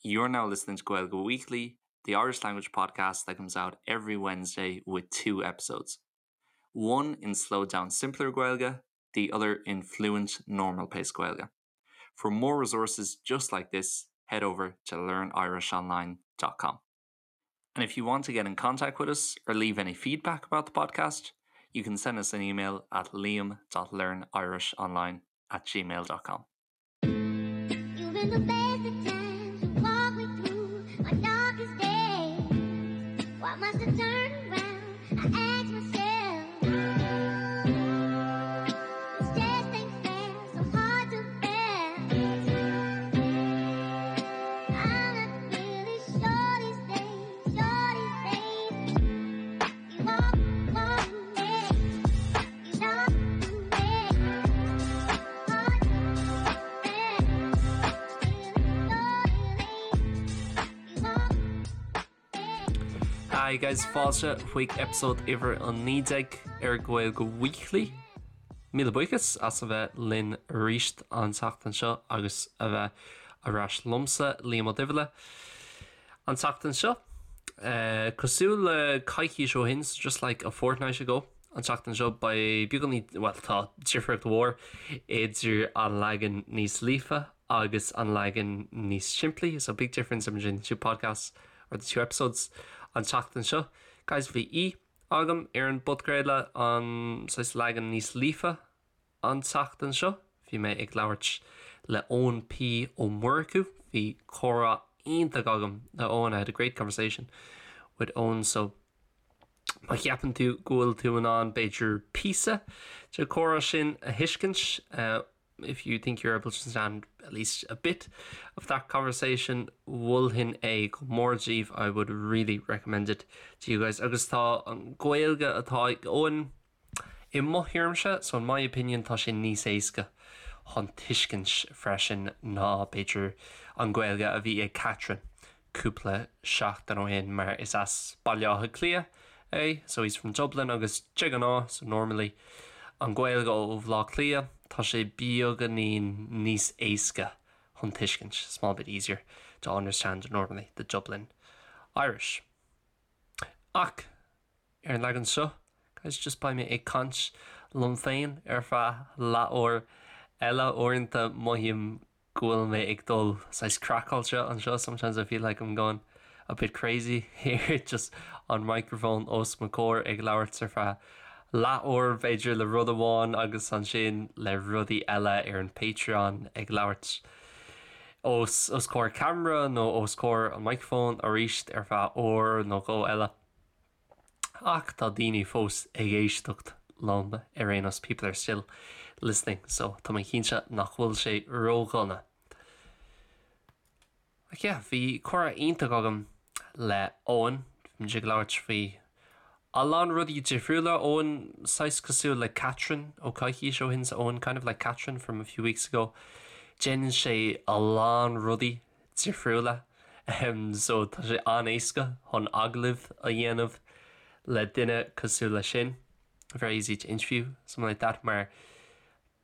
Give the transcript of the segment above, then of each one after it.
You're now listening to Gaeilge Weekly, the Irish language podcast that comes out every Wednesday with two episodes. One in slowed down simpler Gaeilge, the other in fluent normal pace Gaeilge. For more resources just like this, head over to learnirishonline.com. And if you want to get in contact with us or leave any feedback about the podcast, you can send us an email at liam.learnirishonline at gmail.com. You've been the best of times to walk me through my darkest days. Why must I turn around? I ask myself. This just ain't fair, so hard to bear. I'm not really sure these days, sure these days. You walk, walk, yeah. You talk, yeah. Hard to bear. You walk, Hi guys, fáilte chuig episode uimhir 19 ar Gaeilge Weekly. Míle buíochas as a bheith linn arís an tseachtain seo agus a bheith ar ais liomsa Liam Ó Duibhile. An tseachtain seo, uh, cosúil le coicís ó shin, just like a fortnight ago, an tseachtain seo beidh beagáinín well tá difríocht mhór idir an leagan níos líofa agus an leagan níos simplí, so big difference between the two podcasts or the two episodes an tseachtain seo. Guys, bhí aoi agam ar an bpodchraoladh an saghas leagan níos líofa an tseachtain seo. Bhí mé ag labhairt le Eoin P Ó Murchú. Bhí comhrá iontach agam le Eoin. I had a great conversation with Eoin so má cheapann tú go bhfuil tú in ann b'fhéidir píosa den chomhrá sin a thuiscint, uh, if you think you're able to understand at least a bit of that conversation, mholfainn é go mór daoibh, I would really recommend it to you guys. Agus tá an Ghaeilge atá ag Eoin i mo thuairimse, so in my opinion tá sé níos éasca chun tuiscint freisin ná b'fhéidir an Ghaeilge a bhí ag Catherine cúpla seachtain ó shin mar is as Baile Átha Cliath é, so he's from Dublin agus de ghnáth, so normally an Ghaeilge ó Bhaile Átha Cliath tá sé beagáinín níos éasca chun tuiscint, small bit easier to understand normally the Dublin Irish. Ach ar an leagan seo, guys, just beidh mé ag caint liom féin ar feadh leathuair eile uaireanta mothaím go bhfuil mé ag dul saghas craiceáilte anseo sometimes I feel like I'm going a bit crazy here just an microphone os mo chomhair ag labhairt ar feadh leathuair b'fhéidir le rud amháin agus ansin le rudaí eile ar an Patreon ag labhairt os os comhair camera nó os comhair an microphone arís ar feadh uair nó dhó eile. Ach tá daoine fós ag éisteacht liom ar aon nós people are still listening so tá mé cinnte nach bhfuil sé ródhona. Ach yeah, bhí comhrá iontach agam le Eoin, bhí muid ag labhairt faoi a lán rudaí difriúla. Eoin saghas cosúil le Catherine ó coicís ó shin so Eoin kind of like Catherine from a few weeks ago. Déanann sé a lán rudaí difriúla so tá sé an-éasca chun agallamh a dhéanamh le duine cosúil leis sin. Very easy to interview someone like that mar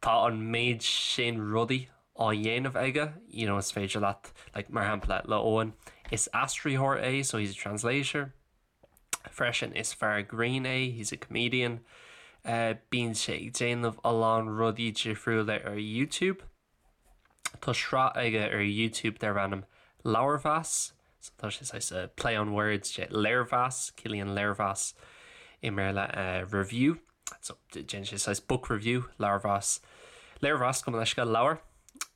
tá an méid sin rudaí á dhéanamh aige, you know, is féidir leat like, mar shampla le Eoin is aistritheoir é, so he's a translator. Freisin is fear grinn é, he's a comedian. Uh, bíonn sé ag déanamh a lán rudaí difriúla ar YouTube. Tá sraith aige ar YouTube darb ainm Leabharmheas, so tá sé saghas uh, play on words sé léirmheas, ciallaíonn léirmheas i mBéarla uh, review. So déanann sé saghas book review, leabharmheas. Léirmheas gabh mo leithscéal leabhar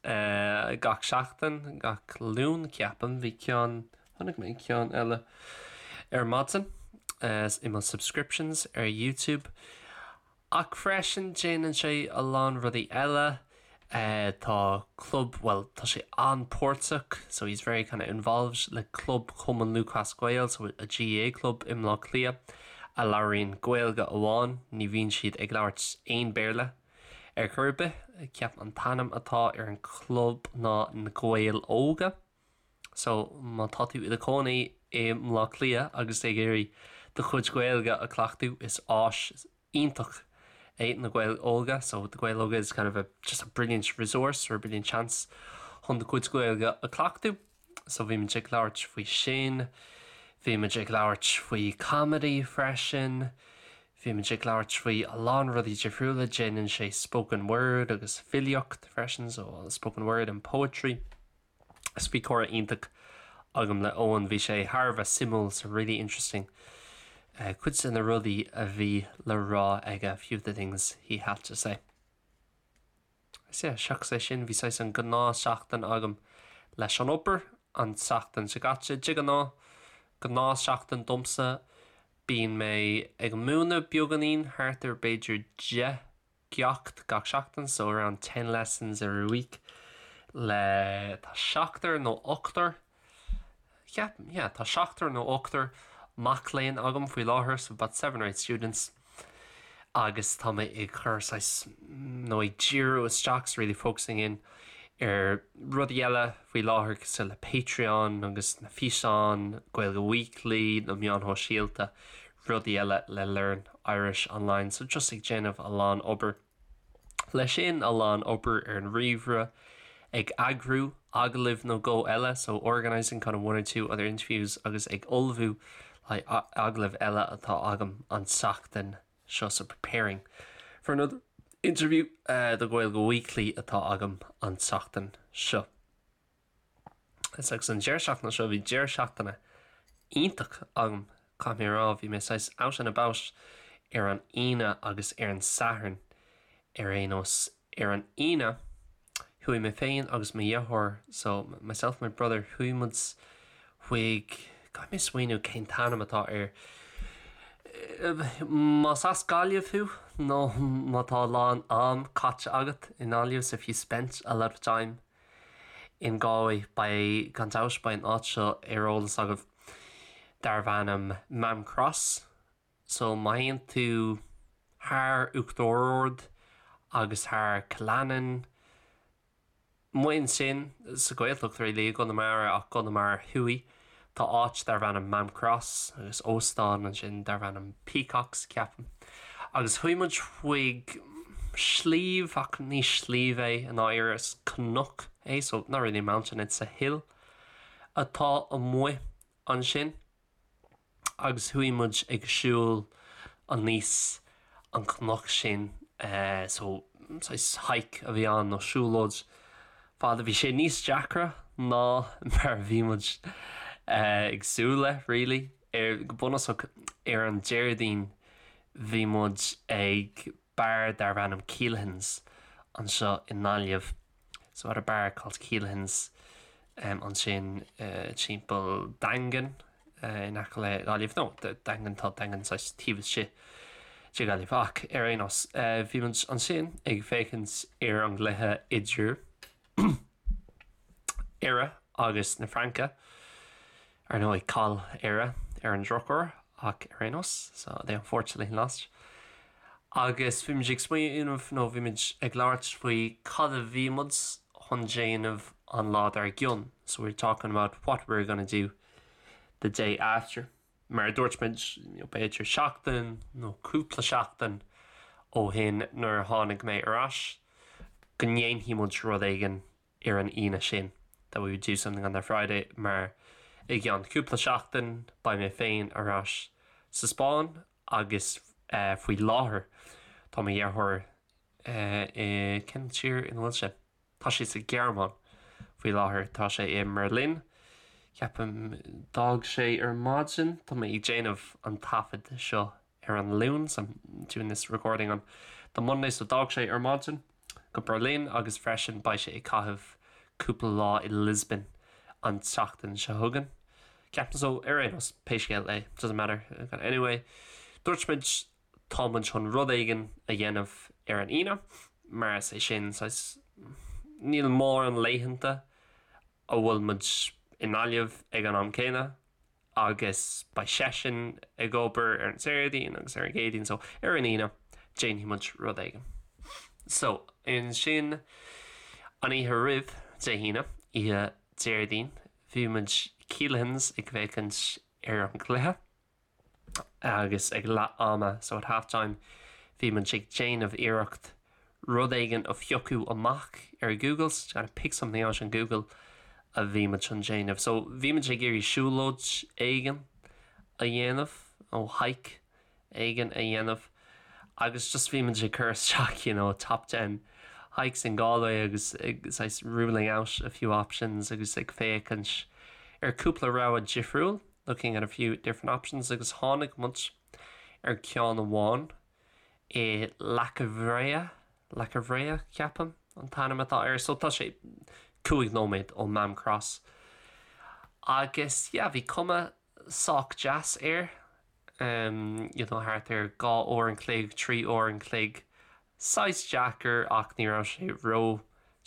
uh, gach seachtain, gach Luan ceapaim, bhí ceann chonaic mé ceann eile ar maidin uh, i mo subscriptions ar YouTube. Ach freisin déanann sé a lán rudaí eile. Uh, tá club well tá sé an-pháirteach so he's very kind of involved le club Chumann Lúthchleas Gael so a GAA club i mBleá Cliath a labhraíonn Gaeilge amháin ní bhíonn siad ag labhairt aon Béarla ar chor ar bith ceapaim an t-ainm atá ar an club ná na Gaeil Óga. So má tá tú i do chónaí i mBleá Cliath agus ag iarraidh do chuid Gaeilge a chleachtadh is áis iontach é na Gaeil Óga, so the Gaeil Óga is kind of a just a brilliant resource or a brilliant chance chun do chuid Gaeilge a chleachtadh. So bhí muid ag labhairt faoi sin, bhí muid ag labhairt faoi comedy freisin, bhí muid ag labhairt faoi a lán rudaí difriúla, déanann sé spoken word agus filíocht freisin, so spoken word and poetry. So bhí comhrá iontach agam le Eoin, bhí sé thar a bheith suimiúil, so really interesting. Cuid de na rudaí a bhí le rá aige, a few of the things he had to say. Is ea, seachas é sin, bhí saghas an gnáthsheachtain agam leis an obair an tseachtain seo caite. De ghnáth, gnáthsheachtain domsa, bíonn mé ag múineadh beagáinín, thart ar b'fhéidir 10 gceacht gach seachtain, so around ten lessons every week, le, tá seachtar nó ochtar, Ceapaim, yeah, tá seachtar nó ochtar mac léinn agam faoi láthair, so about seven or eight students, agus tá mé ag cur saghas, nó ag díriú isteach, so really focusing in, ar rudaí eile faoi láthair cosúil le Patreon agus na físeáin, Gaeilge Weekly, na meáin shóisialta, rudaí eile le Learn Irish Online, so just ag déanamh a lán obair. Leis sin, a lán obair ar an ríomhaire, ag eagrú agallaimh nó dhó eile, so organising kind of one or two other interviews, agus ag ullmhú le haghaidh agallaimh eile atá agam an tseachtain seo, so preparing for another interview do Gaeilge Weekly atá agam an tseachtain seo. Agus an deireadh seachtaine seo, bhí deireadh seachtaine iontach agam, caithfidh mé a rá. Bhí mé saghas out and about ar an Aoine agus ar an Satharn ar aon nós. Ar an Aoine, chuaigh mé féin agus mo dheartháir, so myself and my brother, chuaigh muid chuig, caithfidh mé smaoineamh cén t-ainm atá air, más as Gaillimh thú nó má tá a lán am caite agat i nGaillimh, so if you spent a lot of time in Galway, beidh, gan dabht, beidh an áit seo ar eolas agaibh, darbh ainm Maam Cross. So má théann tú thar Uachtar Ard agus thar Cill Aininn, amuigh ansin sa Ghaeltacht really, i gConamara ach Conamara Thuaidh, tá áit darbh ainm Maam Cross agus óstán ansin darbh ainm Peacocks, ceapaim. Agus chuaigh muid chuig sliabh, ach ní sliabh é i ndáiríre, is cnoc é, so not really a mountain, it's a hill, atá amuigh ansin. Agus chuaigh muid ag siúl aníos an cnoc sin, so saghas hike a bhí ann nó siúlóid fada. Bhí sé níos deacra ná mar a bhí muid ag súil le, really. Ar, go bunúsach, ar an Déardaoin bhí muid ag beár darbh ainm Keelahans anseo i nGaillimh. So at a bar called Keelahans ansin timpeall Daingean in aice le Gaillimh. No, Daingean, tá Daingean saghas taobh istigh de Ghaillimh. Ach ar aon nós, bhí muid ansin ag féachaint ar an gcluiche idir Éire agus na Fraince. Ar ndóigh, chaill Éire ar an drochuair ach ar aon nós, so they unfortunately lost. Agus bhí muid ag smaoineamh nó bhí muid ag labhairt faoi cad a bhí muid chun déanamh an lá dár gcionn, so we were talking about what we were gonna do the day after. Mar a dúirt muid, b'fhéidir seachtain nó cúpla seachtain ó shin nuair a tháinig mé ar ais, go ndéanfaidh muid rud éigin ar an Aoine sin, that we would do something on that Friday, mar i gceann cúpla seachtain beidh mé féin ar ais sa Spáinn agus faoi láthair tá mo dheartháir i, cén tír ina bhfuil sé? Tá sé sa Ghearmáin faoi láthair, tá sé i mBerlin, ceapaim, d'fhág sé ar maidin, tá mé ag déanamh an taifead seo ar an Luan, so I'm doing this recording on the Monday, so d'fhág sé ar maidin go Berlin agus freisin beidh sé ag caitheamh cúpla lá i Lisbon an tseachtain seo chugainn. Ceapaim so ar aon nós, pé scéal é, doesn't matter. Anyway, dúirt muid tá muid chun rud éigin a dhéanamh ar an Aoine, mar is é sin saghas, níl mórán laethanta a bhfuil muid i nGaillimh ag an am céanna, agus beidh seisean ag obair ar an Déardaoin agus ar an gCéadaoin so ar an Aoine déanfaidh muid rud éigin. So ansin an oíche roimh Dé hAoine, oíche Déardaoin, bhí muid Keelahans ag féachaint ar an gcluiche agus ag leath ama, so at half time, bhí muid ag déanamh iarracht rud éigin a phiocadh amach ar Google, so kind of pick something out on Google. a bhí muid chun déanamh. So bhí muid ag iarraidh siúlóid éigin a dhéanamh nó hike éigin a dhéanamh agus just bhí muid ag cur isteach you know top ten hikes in Galway agus ag saghas ruling out a few options agus ag féachaint ar cúpla rogha difriúil looking at a few different options agus tháinig muid ar ceann amháin i Leac an Bhréa, Leac an Bhréa ceapaim an t-ainm atá air so tá sé 5 nóiméad ó Maam Cross agus yeah bhí cuma sách deas air um you know thart ar 2 uair an chloig, 3 uair an chloig, saghas deacair ach ní raibh sé ró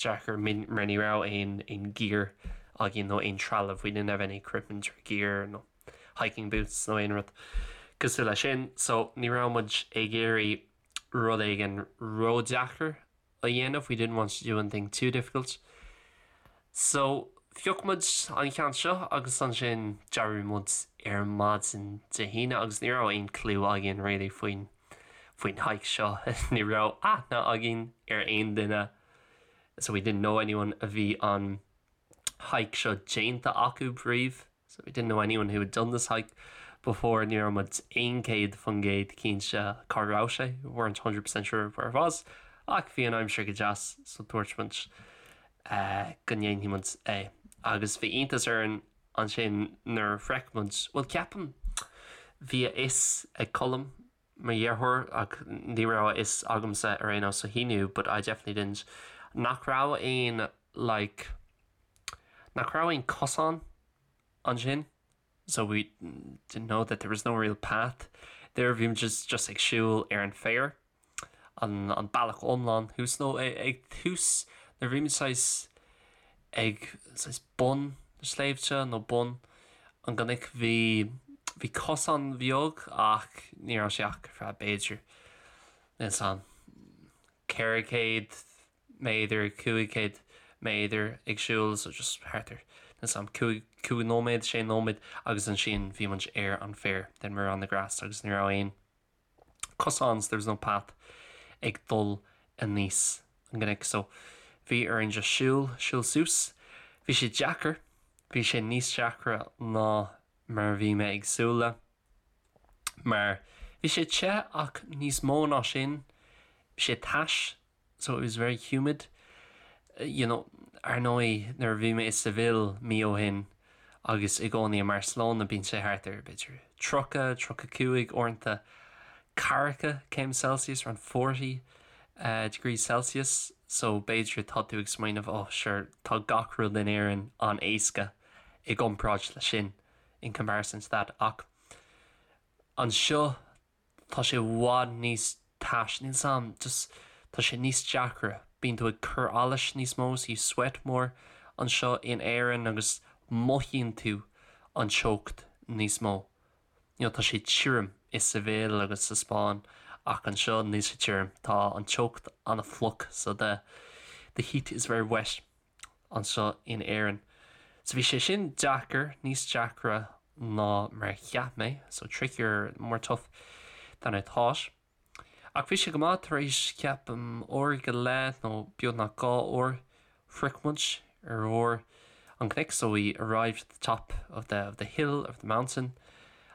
deacair mar ní raibh aon aon gear againn nó aon trealamh, we didn't have any equipment or gear nó hiking boots nó aon rud cosúil leis sin so ní raibh muid ag iarraidh rud éigin ródheacair a dhéanamh, we didn't want to do anything too difficult. So phioc muid an ceann seo agus ansin d'éirigh muid ar maidin Dé hAoine agus ní raibh aon clue againn really faoin faoin hike seo ní raibh aithne againn ar aon duine so we didn't know anyone a bhí an hike seo déanta acu riamh so we didn't know anyone who had done this hike before ní raibh muid 100% cinnte cá raibh sé weren't 100% sure where it was ach bhí an aimsir go deas so dúirt muid uh, go ndéanfaidh muid é agus bhí iontas orainn ansin nuair a shroich muid bhuel ceapaim bhí a fhios ag Colm mo dheartháir ach ní raibh a fhios agamsa ar aon nós so he knew but I definitely didn't nach raibh aon like nach raibh aon cosán ansin so we didn't know that there was no real path there bhí muid just just ag siúl ar an féar an an bealach iomlán thuas nó ag tús nuair bhí muid saghas ag saghas bun na sléibhte nó bun an gcnoic bhí bhí cosán bheag ach ní raibh sé ach ar feadh b'fhéidir níl 's a'm 400 méadar 500 méadar ag siúl so just thart ar níl 's a'm 5 5 nóiméad 6 nóiméad agus ansin bhí muid ar an féar then we were on the grass agus ní raibh aon cosán so there was no path ag dul aníos an gcnoic so bhí orainn just siúl, siúl suas. Bhí sé deacair, bhí sé níos deacra ná mar a bhí mé ag súil le mar bhí sé te ach níos mó ná sin, bhí sé tais so it was very humid. You know, ar ndóigh nuair a bhí mé i Seville mí ó shin agus i gcónaí i mBarcelona bíonn sé thart ar b'fhéidir 30, 35 uaireanta ceathracha céim Celsius, around 40 uh, degrees Celsius, so b'fhéidir tá tú ag smaoineamh oh sure tá gach rud in Éirinn an-éasca i gcomparáid le sin in comparison to that ach anseo Tá sé i bhfad níos tais, níl 's a'm, just tá sé níos deacra, bíonn tú ag cur allais níos mó, so you sweat more anseo in Éirinn agus mothaíonn tú an teocht níos mó. You know, tá sé tirim i Seville agus sa Spáinn ach anseo níl sé tirim, tá an teocht an-fhliuch so the the heat is very wet. anseo in Éirinn. So bhí sé sin deacair, níos deacra ná mar a cheap mé, so trickier, more tough than I thought. Ach bhí sé go maith tar éis ceapaim uair go leith nó beagnach dhá uair shroich muid ar bharr an chnoic, so we arrived at the top of the, of the hill, of the mountain.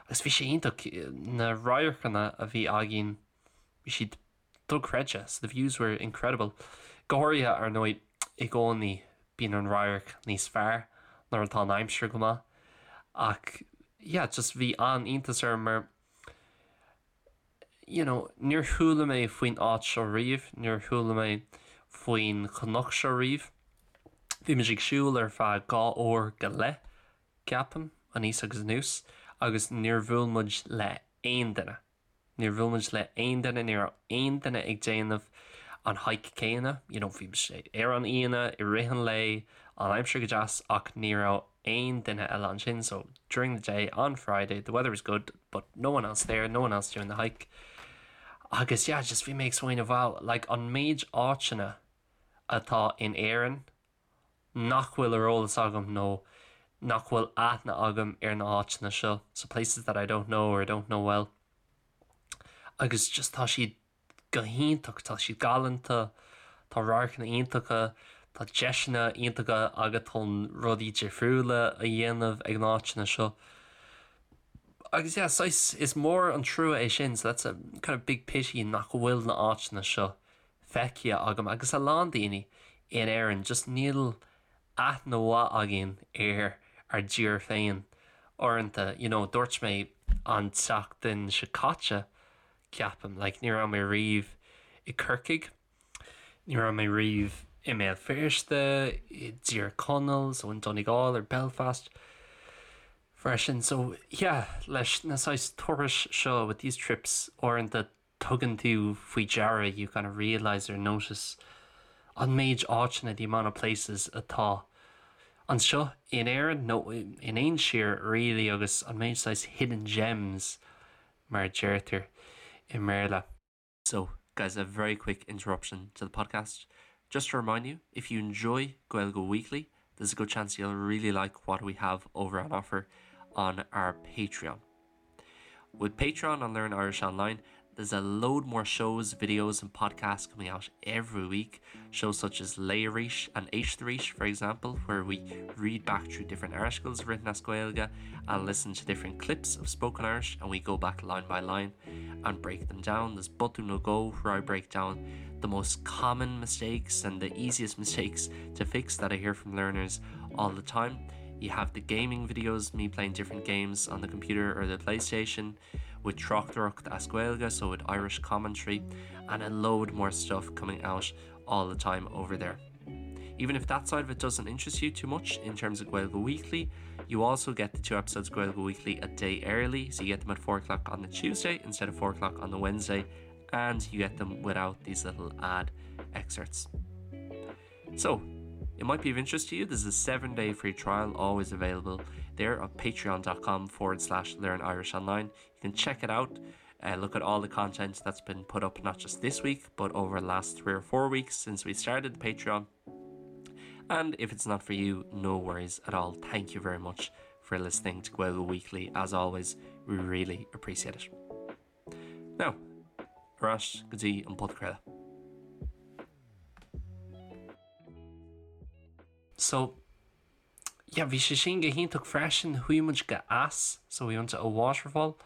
Agus bhí sé iontach, na radharcanna a bhí againn, bhí siad dochreidte, so the views were incredible. Go háirithe, ar ndóigh, i gcónaí bíonn an radharc níos fearr nuair atá an aimsir go maith. Ach yeah, just bhí an-iontas orm mar you know, níor chuala mé faoin áit seo riamh, níor chuala mé faoin chnoc seo riamh. Bhí muid ag siúl ar feadh dhá uair go leith, ceapaim, aníos agus anuas, agus níor bhuail muid le aon duine. Níor bhuail muid le aon duine, ní raibh aon duine ag déanamh an hike céanna, you know, bhí sé ar an Aoine, i rith an lae, an aimsir go deas ach ní raibh aon duine eile ansin, so during the day on Friday the weather was good but no one else there, no one else doing the hike. Agus yeah, just bhí mé ag smaoineamh wow, like an méid áiteanna atá in Éirinn nach bhfuil ar eolas agam nó nach bhfuil aithne agam ar na háiteanna seo, so places that I don't know or don't know well. Agus just tá siad go hiontach, tá siad galánta, tá radharcanna iontacha, Tá deiseanna iontacha agat chun rudaí difriúla a dhéanamh ag na háiteanna seo. Agus yeah, saghas, is mór an trua é sin, so that's a kind of big pity nach bhfuil na háiteanna seo feicthe agam agus a lán daoine in Éirinn, just níl aithne mhaith againn ar ár dtír féin uaireanta. You know, dúirt mé an tseachtain seo caite, ceapaim, like ní raibh mé riamh i Corcaigh, ní raibh mé riamh i mBéal Feirste, i dTír Chonaill, so in Donegal or Belfast freisin. So yeah, leis na saghas turais seo with these trips uaireanta tugann tú faoi deara you kind of realise or notice an méid áiteanna the amount of places atá anseo in Éirinn nó in aon tír really agus an méid saghas hidden gems mar a deirtear i mBéarla. So, guys, a very quick interruption to the podcast. Just to remind you, if you enjoy Gaeilge Weekly, there's a good chance you'll really like what we have over on offer on our Patreon. With Patreon on Learn Irish Online, there's a load more shows, videos and podcasts coming out every week. Shows such as Léigh Arís and Éist Arís, for example, where we read back through different articles written as Gaeilge and listen to different clips of spoken Irish and we go back line by line and break them down. There's Botún Nó Dhó, where I break down the most common mistakes and the easiest mistakes to fix that I hear from learners all the time. You have the gaming videos, me playing different games on the computer or the PlayStation with Tráchtaireacht as Gaeilge, so with Irish commentary, and a load more stuff coming out all the time over there. Even if that side of it doesn't interest you too much in terms of Gaeilge Weekly, you also get the two episodes of Gaeilge Weekly a day early, so you get them at 4 o'clock on the Tuesday instead of 4 o'clock on the Wednesday, and you get them without these little ad excerpts. So, it might be of interest to you. There's a seven day free trial always available there on patreon.com forward slash learn Irish online. You can check it out. Uh, look at all the content that's been put up not just this week but over the last three or four weeks since we started the Patreon. And if it's not for you, no worries at all. Thank you very much for listening to Gaeilge Weekly. As always, we really appreciate it. Now, ar ais go dtí an podchraoladh. So, yeah, bhí sé sin go hiontach freisin, chuaigh muid go eas, so we went to a waterfall,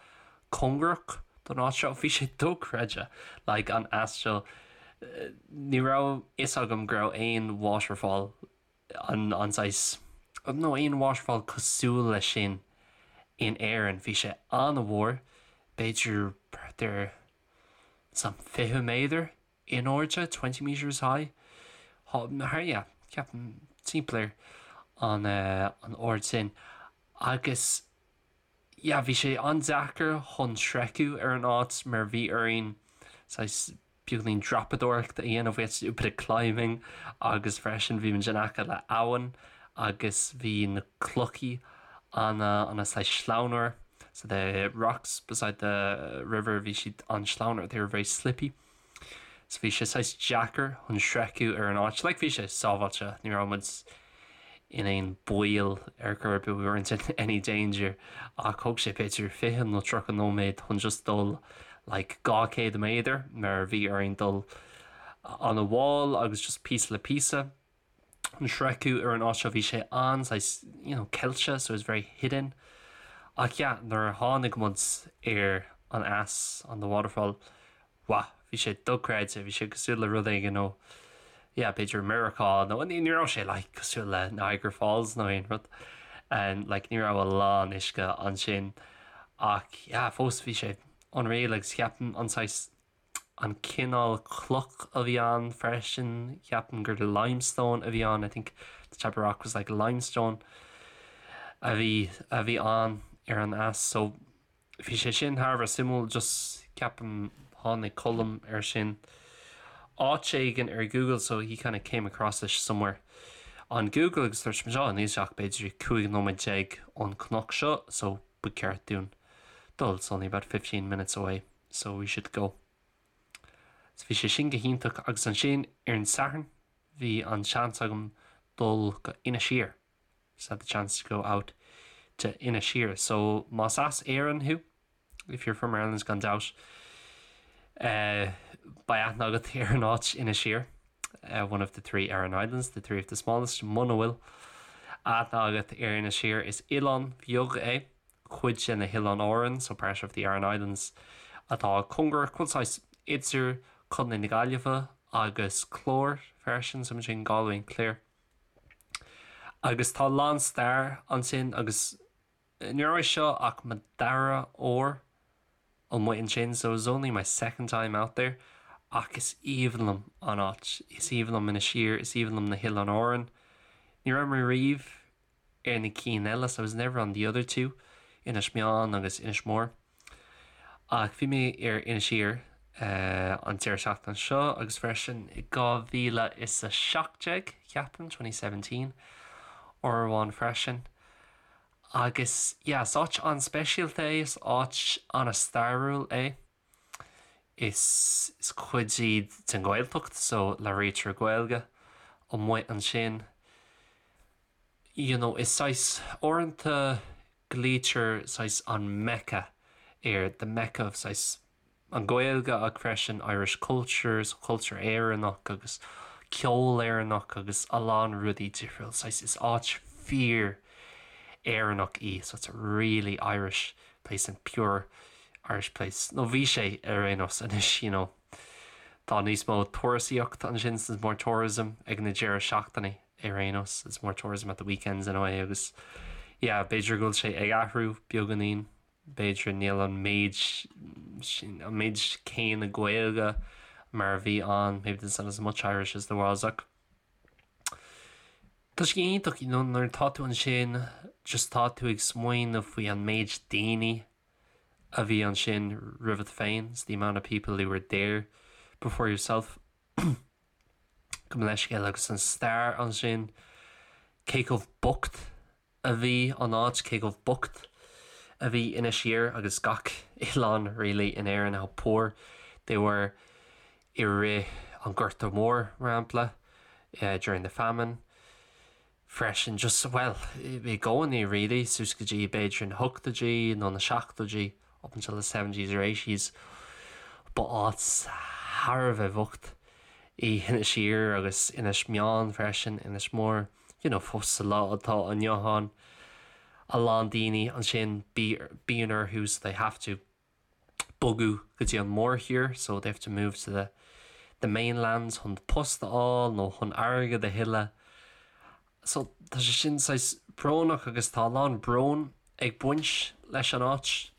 cóngarach don áit seo, bhí sé dochreidte, like an eas seo, ní raibh fhios agam go raibh aon waterfall an an saghas nó aon waterfall cosúil leis sin in Éirinn. Bhí sé an-mhór, b'fhéidir thart ar some 20 méadar in airde, 20 metres high. Thar, yeah, ceapaim timpeall ar an an ard sin. Agus yeah, bhí sé an-deacair chun sroicheadh ar an áit mar bhí orainn saghas beagáinín dreapadóireachta a dhéanamh, we had to do a bit of climbing agus freisin bhí muid in aice le abhainn agus bhí na clochaí ana ana saghas sleamhain so the rocks beside the river bhí siad an-sleamhain they were very slippy so bhí sé saghas deacair chun sroicheadh ar an áit like bhí sé sábháilte ní raibh muid in aon baol ar chor ar bith we weren't in any danger ach thóg sé b'fhéidir 20 nó 30 nóiméad chun just dul like 200 méadar mar bhí orainn dul an-mhall agus just píosa le píosa chun sroicheadh ar an áit seo bhí sé an-saghas you know ceilte so it was very hidden ach yeah nuair a tháinig muid ar an eas on the waterfall Wah, bhí sé dochreidte, bhí sé cosúil le rud éigin ó, yeah, b'fhéidir Meiriceá nó ní raibh sé like cosúil le Niagara Falls nó aon rud. And like ní raibh a lán uisce ansin ach yeah, fós bhí sé unreal agus ceapaim an saghas an cineál cloch a bhí ann freisin, ceapaim gur limestone a bhí ann, I think the type of rock was like limestone a bhí a bhí ann ar an eas so Bhí sé sin thar a bheith suimiúil, just ceapaim tháinig Colm air sin áit éigin ar Google so he kind of came across it somewhere on Google agus dúirt muid, oh níl sé ach b'fhéidir 15 nóiméad ón cnoc seo so ba cheart dúinn dul, it's only about 15 minutes away so we should go. So bhí sé sin go hiontach agus ansin ar an Satharn bhí an seans agam dul go Inis Oírr. So had the chance to go out to Inis Oírr. So más as Éirinn thú, if you're from Ireland gan dabht, uh, beidh aithne agat ar an áit Inis Oírr. uh, one of the 3 Aran Islands, the 3 of the smallest, muna bhfuil aithne agat ar Inis Oírr is oileán beag é, cuid de na hOileáin Árann, so part of the Aran Islands, atá cóngarach, bhuel saghas idir Contae na Gaillimhe agus Clár freisin, so between Galway and Clare. Agus tá a lán stair ansin agus ní raibh seo ach mo dara huair amuigh ansin, so it was only my second time out there, ach is aoibhinn liom an áit, is aoibhinn liom Inis Oírr, is aoibhinn liom na hOileáin Árann. Ní raibh mé riamh ar na cinn eile, so I was never on the other 2, Inis Meáin agus Inis Mór. Ach bhí mé ar Inis Oírr an deireadh seachtaine seo agus freisin i 2017, ceapaim, 2017, uair amháin freisin. Agus yeah, is áit an-speisialta é, is áit an-stairiúil é. Is is cuid iad den Ghaeltacht so labhraítear Gaeilge amuigh ansin. You know, is saghas, uaireanta glaoitear saghas an Mecca air, the Mecca of saghas an Ghaeilge ach freisin Irish culture, so cultúr Éireannach agus ceol Éireannach agus a lán rudaí difriúil. Saghas is áit fíor Éireannach í, so it's a really Irish place and pure Irish place. Nó bhí sé ar aon nós anois, you know. Tá níos mó turasaíocht ansin, there's more tourism ag na deireadh seachtaine ar aon nós, there's more tourism at the weekends anyway agus yeah, b'fhéidir go bhfuil sé ag athrú beagáinín, b'fhéidir níl an méid sin, an méid céanna Gaeilge mar a bhí ann, maybe there's not as much Irish as there was ach tá sé iontach, you know, nuair atá tú ansin just tá tú ag smaoineamh faoi an méid daoine a bhí ansin roimhat féin, it's the amount of people who were there before yourself. Gabh mo leithscéal agus an stair ansin, cé chomh bocht a bhí an áit, cé chomh bocht a bhí Inis Oírr agus gach oileán really in Éirinn, how poor they were i rith an Ghorta Mhóir, mar shampla, during the famine. Freisin, just, bhuel, i gcónaí really, suas go dtí b'fhéidir na hochtóidí nó na seachtóidí, up until the seventies or eighties, ba áit thar a bheith bhocht í Inis Oírr agus Inis Meáin freisin, Inis Mór, you know, fós sa lá atá inniu ann, a lán daoine ansin, bíonn orthu, so they have to bogadh go dtí an mórthír, so they have to move to the the mainland chun post a fháil nó chun airgead a thuilleadh. So tá sé sin saghas brónach agus tá a lán brón ag baint leis an áit.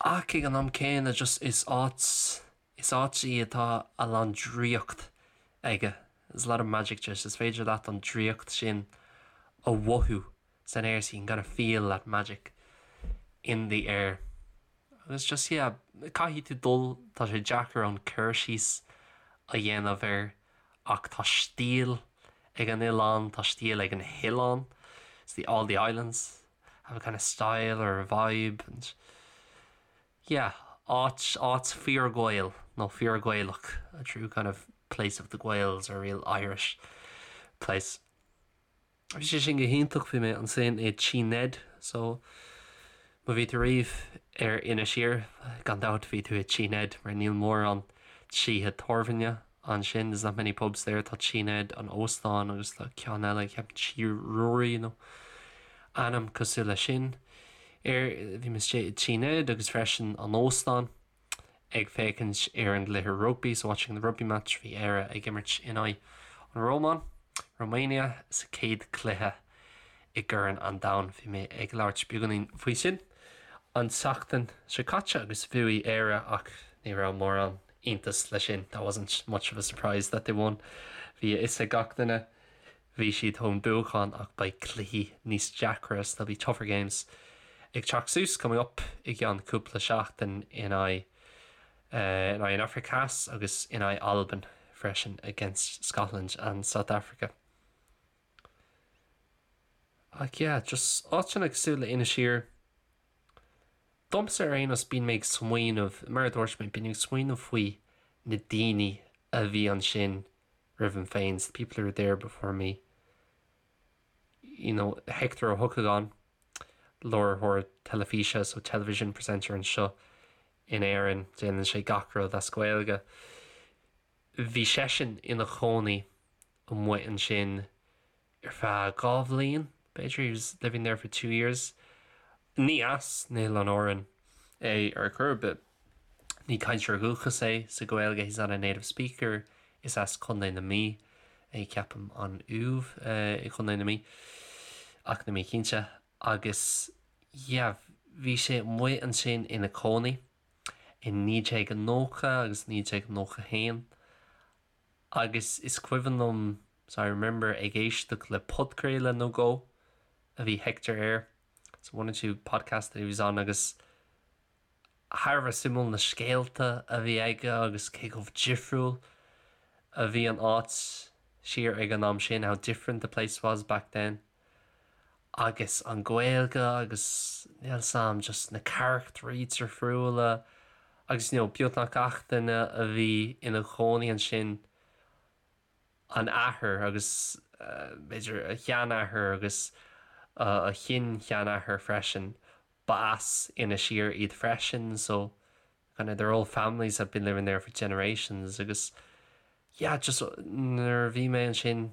Ach ag an am céanna just is áit is áit í atá a lán draíocht aige. There's a lot of magic to it. Is féidir leat an draíocht sin a mhothú san aer so you can kind of feel that magic in the air. Agus just yeah, caithfidh tú dul, tá sé deacair an cur síos a dhéanamh air ach tá stíl ag an oileán, tá stíl ag na hoileáin, it's the all the islands have a kind of style or a vibe and yeah, áit, áit fíor-Ghael nó fíor-Ghaelach, a true kind of place of the Gaels or a real Irish place. Bhí sé sin go hiontach, bhí mé ansin i Tí Ned so má bhí tú riamh ar Inis Oírr, gan dabht bhí tú i Tí Ned mar níl mórán tithe tábhairne ansin, there's not many pubs there, tá Tí Ned, an óstán agus tá ceann eile, ceapaim Tí Ruairí nó ainm cosúil leis sin air. Bhí mé istigh i Tí Ned agus freisin an óstán. ag féachaint ar an gcluiche rugbaí, so watching the rugby match, bhí Éire ag imirt in aghaidh an Rómáin, Romania, sa chéad chluiche i gCorn an Domhain. Bhí mé ag labhairt beagáinín faoi sin an tseachtain seo caite agus bhuaigh Éire ach ní raibh mórán iontas leis sin, that wasn't much of a surprise that they won. Bhí a fhios ag gach duine, bhí siad chun buachan ach beidh cluichí níos deacra, so there'll be tougher games ag teacht suas, coming up, i gceann cúpla seachtain in aghaidh in aghaidh an Afraic Theas agus in aghaidh Albain freisin, against Scotland and South Africa. Ach yeah, just áiteanna cosúil le Inis Oírr, domsa ar aon nós bíonn mé ag smaoineamh, mar a dúirt mé, bíonn mé ag smaoineamh faoi na daoine a bhí ansin roimham féin, the people who were there before me. You know, Hector Ó hEochagáin, láithreoir teilifíse, so television presenter anseo in Éirinn, déanann sé gach rud as Gaeilge. Bhí seisean ina chónaí amuigh ansin ar feadh dhá bhliain, b'fhéidir, he was living there for two years. Ní as na hOileáin Árann é ar chor ar bith. Ní cainteoir dúchais é sa Ghaeilge, he's not a native speaker, is as Contae na Mí é ceapaim, an Uaimh i gContae na Mí, ach níl mé cinnte, agus yeah bhí sé amuigh ansin ina chónaí i 1990 agus 1991 agus is cuimhin liom, so I remember ag éisteacht le podchraoladh nó dhó a bhí Hector air, so one or two podcasts that he was on agus thar a bheith suimiúil na scéalta a bhí aige agus cé chomh difriúil a bhí an áit siar ag an am sin, how different the place was back then. Agus an Ghaeilge agus níl 's a'm just na carachtraí difriúla agus you know beagnach gach duine a bhí ina chónaí ansin an athair agus b'fhéidir a sheanathair agus a shin-sheanathair freisin ba as Inis Oírr iad freisin so kind of their whole families have been living there for generations agus yeah just nuair a bhí mé ansin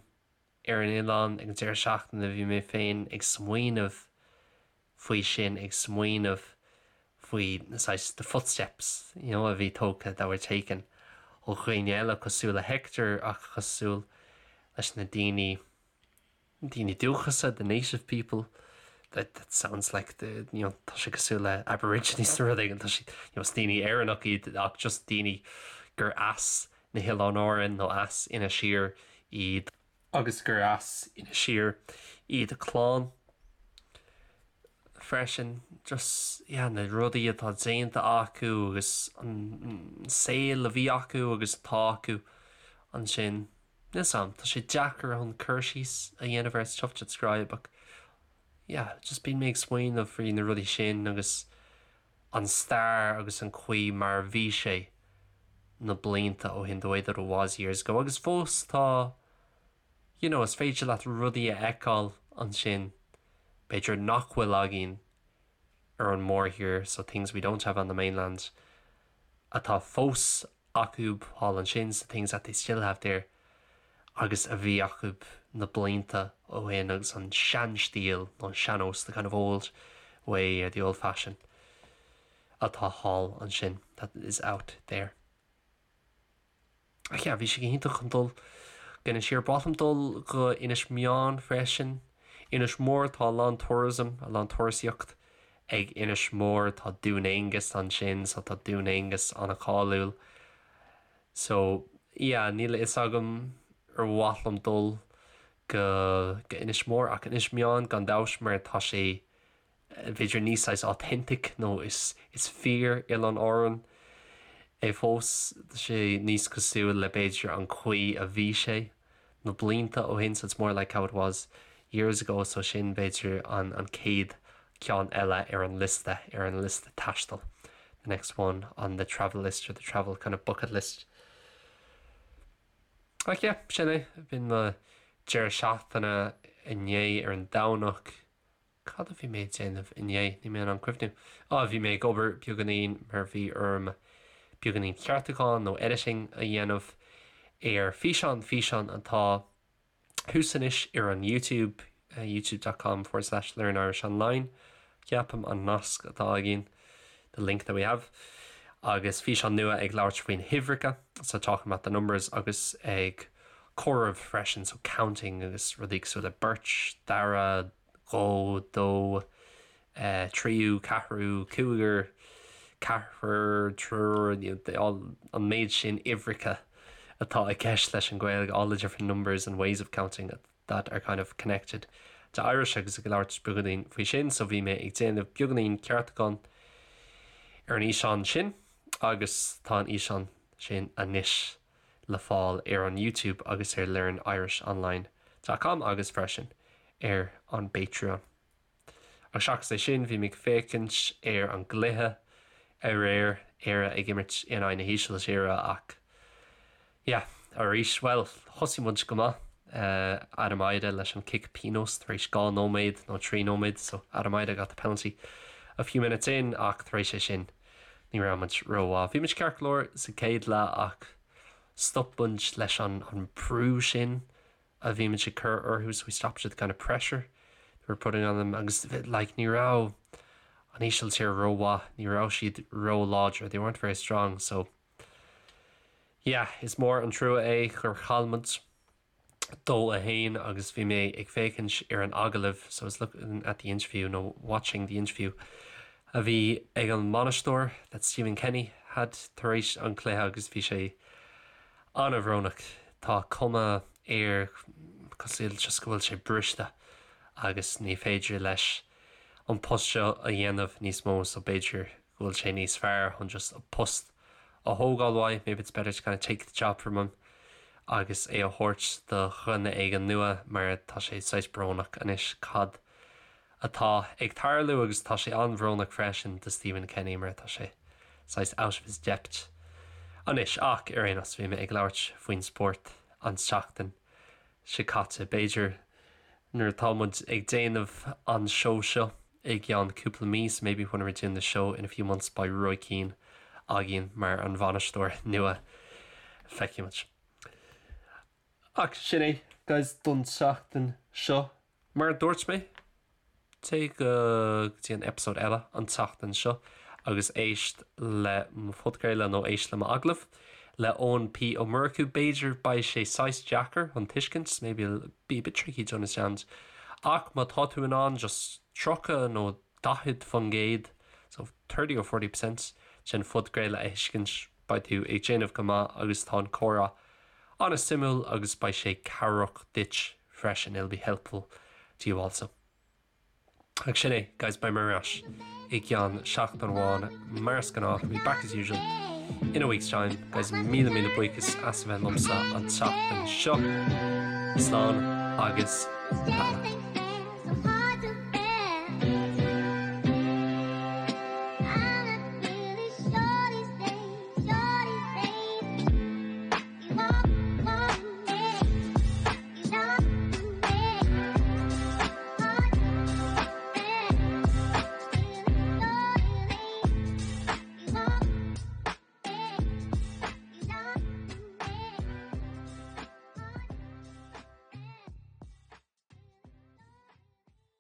ar an oileán ag an deireadh seachtaine bhí mé féin ag smaoineamh faoi sin ag smaoineamh faoi na saghas the footsteps you know a bhí tógtha that were taken ó dhaoine eile cosúil le Hector ach cosúil leis na daoine daoine dúchasa the native people that that sounds like the you know tá sé cosúil le aborigines nó rud éigin tá siad you know is daoine Éireannach iad ach just daoine gur as na hOileáin Árann nó as Inis Oírr iad agus gur as Inis Oírr iad a clann freisin just yeah na rudaí atá déanta acu agus an saol a bhí acu agus atá acu ansin. Níl 's a'm, tá sé deacair chun cur síos a dhéanamh air, it's tough to describe ach yeah, just bíonn mé ag smaoineamh faoi na rudaí sin agus an stair agus an chaoi mar a bhí sé na blianta ó shin, the way that it was years ago agus fós tá you know, is féidir leat rudaí a fheiceáil ansin b'fhéidir nach bhfuil againn ar an mórthír, so things we don't have on the mainland atá fós acu thall ansin, so things that they still have there agus a bhí acu na blianta ó shin agus an seanstíl nó an sean-nós, the kind of old way or the old fashion atá thall ansin, that is out there. Ach yeah, bhí sé go hiontach chun dul go Inis Oírr. Ba mhaith liom dul go Inis Meáin freisin. Inis Mór, tá a lán tourism, a lán turasaíocht ag Inis Mór, tá Dún Aengus ansin, so tá Dún Aengus an-cháiliúil. So, yeah, níl a fhios agam ar mhaith liom dul go go Inis Mór ach Inis Meáin gan dabht mar tá sé b'fhéidir níos saghas authentic nó is is fíor Oileán Árann é fós. Tá sé níos cosúil le b'fhéidir an chaoi a bhí sé na blianta ó shin so it's more like how it was years ago so sin b'fhéidir an an chéad ceann eile ar an liosta ar an liosta taistil the next one on the travel list or the travel kind of bucket list. Ach yeah, sin é. B'in mo deireadh seachtaine inné ar an Domhnach. Cad a bhí mé ag déanamh inné? Níl mé in ann cuimhniú. Á, bhí mé ag obair beagáinín mar bhí orm beagáinín ceartúchán nó editing a dhéanamh ar físeán, físeán atá thuas anois ar an YouTube, youtube dot com forward slash learn Irish online, ceapaim an nasc atá againn, the link that we have, agus físeán nua ag labhairt faoi na huimhreacha, so talking about the numbers agus ag comhaireamh freisin, so counting agus rudaí cosúil le beirt, dara, dhó, dó, tríú, ceathrú, cúigear, ceathrar, triúr, an méid sin uimhreacha atá i gceist leis an Ghaeilge, all the different numbers and ways of counting that are kind of connected to Irish agus ag labhairt beagáinín faoi sin, so bhí mé ag déanamh beagáinín ceartúchán ar an fhíseán sin agus tá an fhíseán sin anois le fáil ar an YouTube agus ar learnirishonline dot com agus freisin ar an bPatreon. Ach seachas é sin, bhí mé ag féachaint ar an gcluiche aréir, Éire ag imirt in aghaidh na hÍsiltíre ach yeah, arís, bhuel, thosaigh muid go maith, Adam Idah leis an cic pionóis tar éis 2 nóiméad nó 3 nóiméad, so Adam Idah got the penalty a few minutes in ach tar éis é sin, Ní raibh muid rómhaith. Bhí muid ceart go leor sa chéad leath ach Stop muid leis an an brú sin a bhí muid ag cur orthu so we stopped the kind of pressure we were putting on them agus like ní raibh an Ísiltír rómhaith, ní raibh siad ró-láidir, they weren't very strong so yeah is mór an trua é gur chaill muid 2-1 agus bhí mé ag féachaint ar an agallamh so I was looking at the interview nó watching the interview a bhí ag an mbainisteoir that Stephen Kenny had tar éis an cluiche agus bhí sé an-bhrónach. Tá cuma air cosúil just go bhfuil sé briste agus ní féidir leis an post seo a dhéanamh níos mó so b'fhéidir go bhfuil sé níos fearr chun just an post a thógáil uaidh, maybe it's better to kind of take the job from him agus é a thabhairt do dhuine éigin nua mar tá sé saghas brónach anois cad atá ag tarlú agus tá sé an-bhrónach freisin do Stephen Kenny mar tá sé saghas out of his depth anois ach ar aon nós bhí mé ag labhairt faoin spórt an tseachtain seo caite. B'fhéidir nuair atá muid ag déanamh an seó seo i gceann cúpla mí so maybe when we're doing the show in a few months beidh Roy Keane againn mar an bhainisteoir nua. Feicfidh muid. Ach sin é guys don tseachtain seo. Mar a dúirt mé, téigh go dtí an eipeasóid eile an tseachtain seo agus éist le mo phodchraoladh nó éist le m'agallamh le Eoin P. Ó Murchú. B'fhéidir beidh sé saghas deacair chun tuiscint, maybe it'll be a bit tricky to understand, ach má tá tú in ann just 30 nó 40%, so 30 or 40 percent, den phodchraoladh a thuiscint, beidh tú ag déanamh go maith agus tá an comhrá an-suimiúil agus beidh sé cabhrach duit freisin, it'll be helpful to you also. Ach sin é, guys, beidh mé ar ais i gceann seachtain amháin mar is gnáth, I'll be back as usual in a week's time. Guys, míle míle buíochas as a bheith liomsa an tseachtain seo. Slán agus beannacht.